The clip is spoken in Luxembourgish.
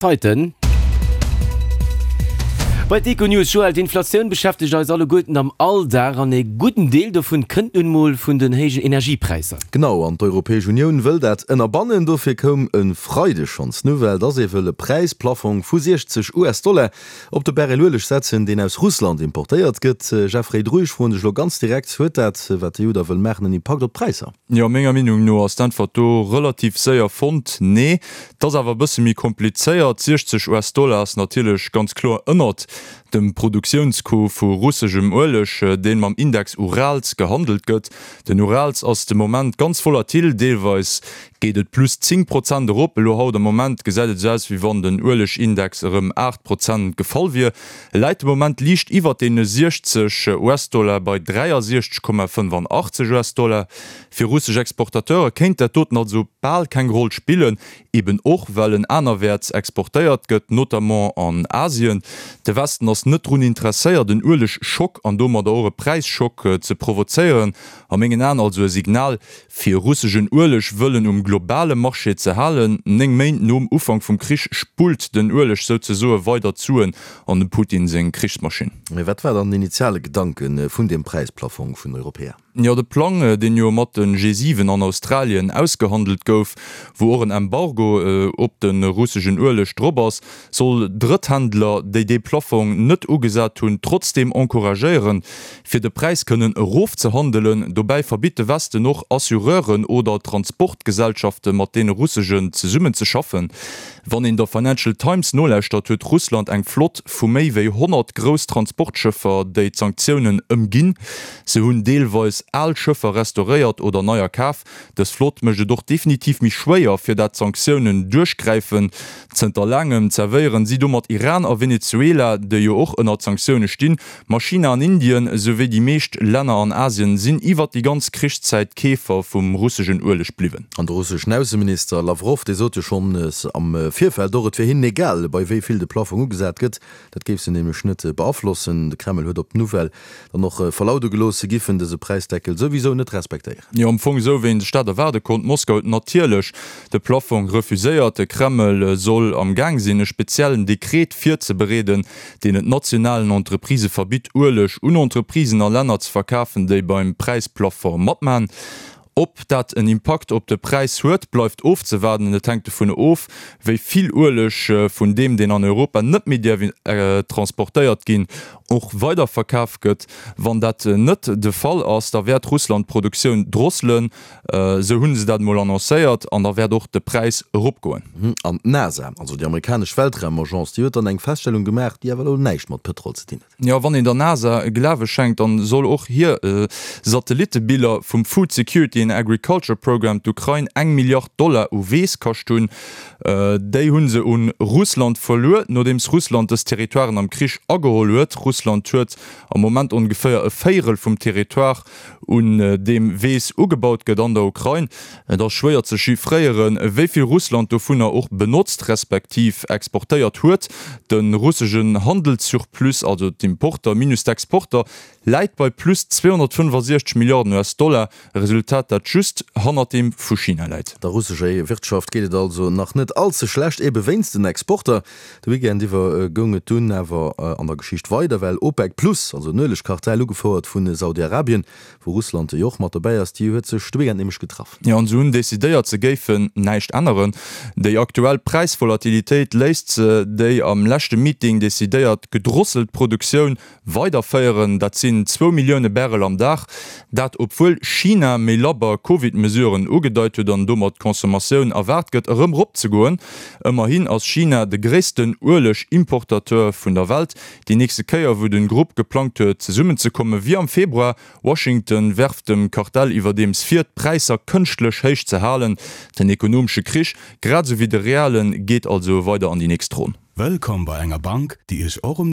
Zeiten. Bei d'Econews, Joël, d'Inflatioun beschäftegt eis alleguerten am Alldag an ee gudden Deel dovun kënnt nun mol vun den héijen Energiepräisser. Genau, an d'Europäesch Unioun wëll dat ënnerbannen. Dofir koum e Freideg schonns d'Nouvelle, dass ee wëll e Präisplafong vu 60 US-Dollar op de Barrel Ueleg setzen, deen aus Russland importéiert gëtt. Jeffrey Dru, ech froen dech elo ganz direkt, Huet dat, wat d'EU da wëll maachen, en Impakt op d'Präisser? Jo, menger Meenung no ass d'Äntwert do relativ séier fonnt, Nee. Et ass awer e bësse méi komplizéiert. 60 US-Dollar ass natierlech ganz kloer ënnert dem Produktiounscoût vu russeschem Ueleg, deen mam Index Urals gehandelt gëtt. Den Urals ass de Moment ganz volatil, deelweis geet et plus 10 Prozent erop. Elo haut am Moment gesäit et esou aus, wéi wann den Uelegindex erëm 8 Prozent gefall wier. E läit de Moment liicht iwwert deene 60 US-Dollar bei 63,85 US-Dollar. Fir russesch Exportateure kéint dat doten also bal keng Roll spillen, eben och well en anerwäerts exportéiert gëtt, notamment an Asien. De Westen ass net drun interesséiert en Uelegschock an domadder och e Präisschock ze provozéieren. A mengen Aen also e Signal, Fir russeschen Ueleg wëllen um globale Marché ze halen. 9 Méint nom Ufank vum Krich spullt den Ueleg souzesoe weider d'Suen an dem Putin seng Krichsmaschinn. Mee wat war dann den initiale Gedanke vun deem Präisplafong vun Europäer? Jo, de Plang, deen jo mat de G7 an Australien ausgehandelt gouf, wou och en Embargo op de russeschen Ueleg drop ass, soll Drëtthändler, déi dee Plaffong net ugesat hunn, trotzdeem encouragéieren, fir de Präis kënnen erofzehandelen. Dobäi verbitt de Westen och Assureuren oder Transportgesellschafte mat deene russegen zesummen ze schaffen. Wann een der Financial Times nolauschtert, huet Russland eng Flott vu méi wéi 100 grouss Transportschëffer, déi d'Sanktiounen ëmginn. Se hunn deelweis al Schëffer restauréiert oder neier kaf. Dës Flott mécht et och definitiv méi schwéier, fir dat d'Sanktiounen duerchgräifen. Zënter laangem zerwéieren si domat Iran a Venezuela, déi jo och ënnert Sanktioune stinn. Ma China an Indien, souwéi déi meescht Länner an Asien sinn iwwert déi ganz Krichszäit Keefer vum russeschen Ueleg bliwwen. An de russeschen Ausseminister Lawrow, dee sot jo schonns am Virfeld och, et wier hinnen egal, bei wéi vill de Plaffong ugesat gëtt. Dat géif se nämlech net beaflossen. De Kreml huet op d'Nouvelle dann och verlaude gelooss, se giffen dëse Präisdeckel souwisou net respektéieren. Jo, am Fong esou, wéi een sech dat erwaarde konnt. Moskau huet natierlech de Plaffong refuséiert. De Kreml soll am Gaang sinn, e speziellen Dekret virzebereeden, deen et nationalen Entreprisë verbitt, Ueleg un Entreprisen a Länner ze verkafen, déi beim Präisplafong matman. Ob dat en Impakt op de Präis huet, bleift ofzewaarden. Et hänkt dovun of, wéi vill Ueleg vun deem, deen an Europa net méi däerf transportéiert ginn, och weiderverkaf gëtt. Wann dat net de Fall ass, da wäert Russland d'Produktioun drosselen, esou hu se dat emol annoncéiert, an da wäert och de Präis eropgoen. An d'NASA, also déi amerikanesch Weltraumagence, déi huet dann eng Feststellung gemaach, déi awer elo näischt mat Pëtrol ze dinn huet. Jo, wann een der NASA Glawe schenkt, dann soll och hir Satellittebiller vum Food Security and Agriculture Program d'Ukrain eng Milliard Dollar u Weess kascht hunn. Déi hu se un Russland verluer, nodeems Russland dës Territoiren am Krich ageholl huet. Russland huet am Moment ongeféier e Véierel vum Territoire un deem Weess ugebaut gëtt an der Ukrain. Et ass schwéier ze chiffréieren, wéi vill Russland dovunner och benotzt respektiv exportéiert huet. De russegen Handelssurplus, also d'Importer minus d'Exporter, läit bei plus 265 Milliarden US-Dollar, e Resultat, dat just hannert deem vu China läit. Der russescher Wirtschaft geet et also nach net all ze schlecht, ebe wéinst den Exporter. De Weekend iwwer goung et dunn awer an der Geschicht weider, well OPEC Plus, also den Uelegkartell, ugefouert vu Saudi-Arabien, wou Russland jo och mat dobäi ass, déi huet sech de Weekend nämlech getraff. Jo, an se hunn decidéiert, se géifen näischt änneren. Déi aktuell Präisvolatilitéit léisst se déi am leschte Meeting decidéiert gedrosselt Produktioun Weiderféieren, dat sinn zwou Millioune Barrel am Dag. Dat obwuel China méi labber Covid-Mesuren ugedeit huet an domat d'Consommatioun erwaart gëtt erëm eropzegoen. Ëmmerhin ass China de gréissten Ueleg-Importateur vun der Welt. Déi nächste Kéier wou den Grupp geplangt huet zesummenzekomme wier am Februar. Washington werft dem Kartell iwwerdeems vir, d'Präisser kënschtlech héich ze halen. Den ekonomesche Krich, grad esou wéi de realen, geet also weider an déi nächst Ronn. Wëllkomm bei enger Bank, déi Iech och um.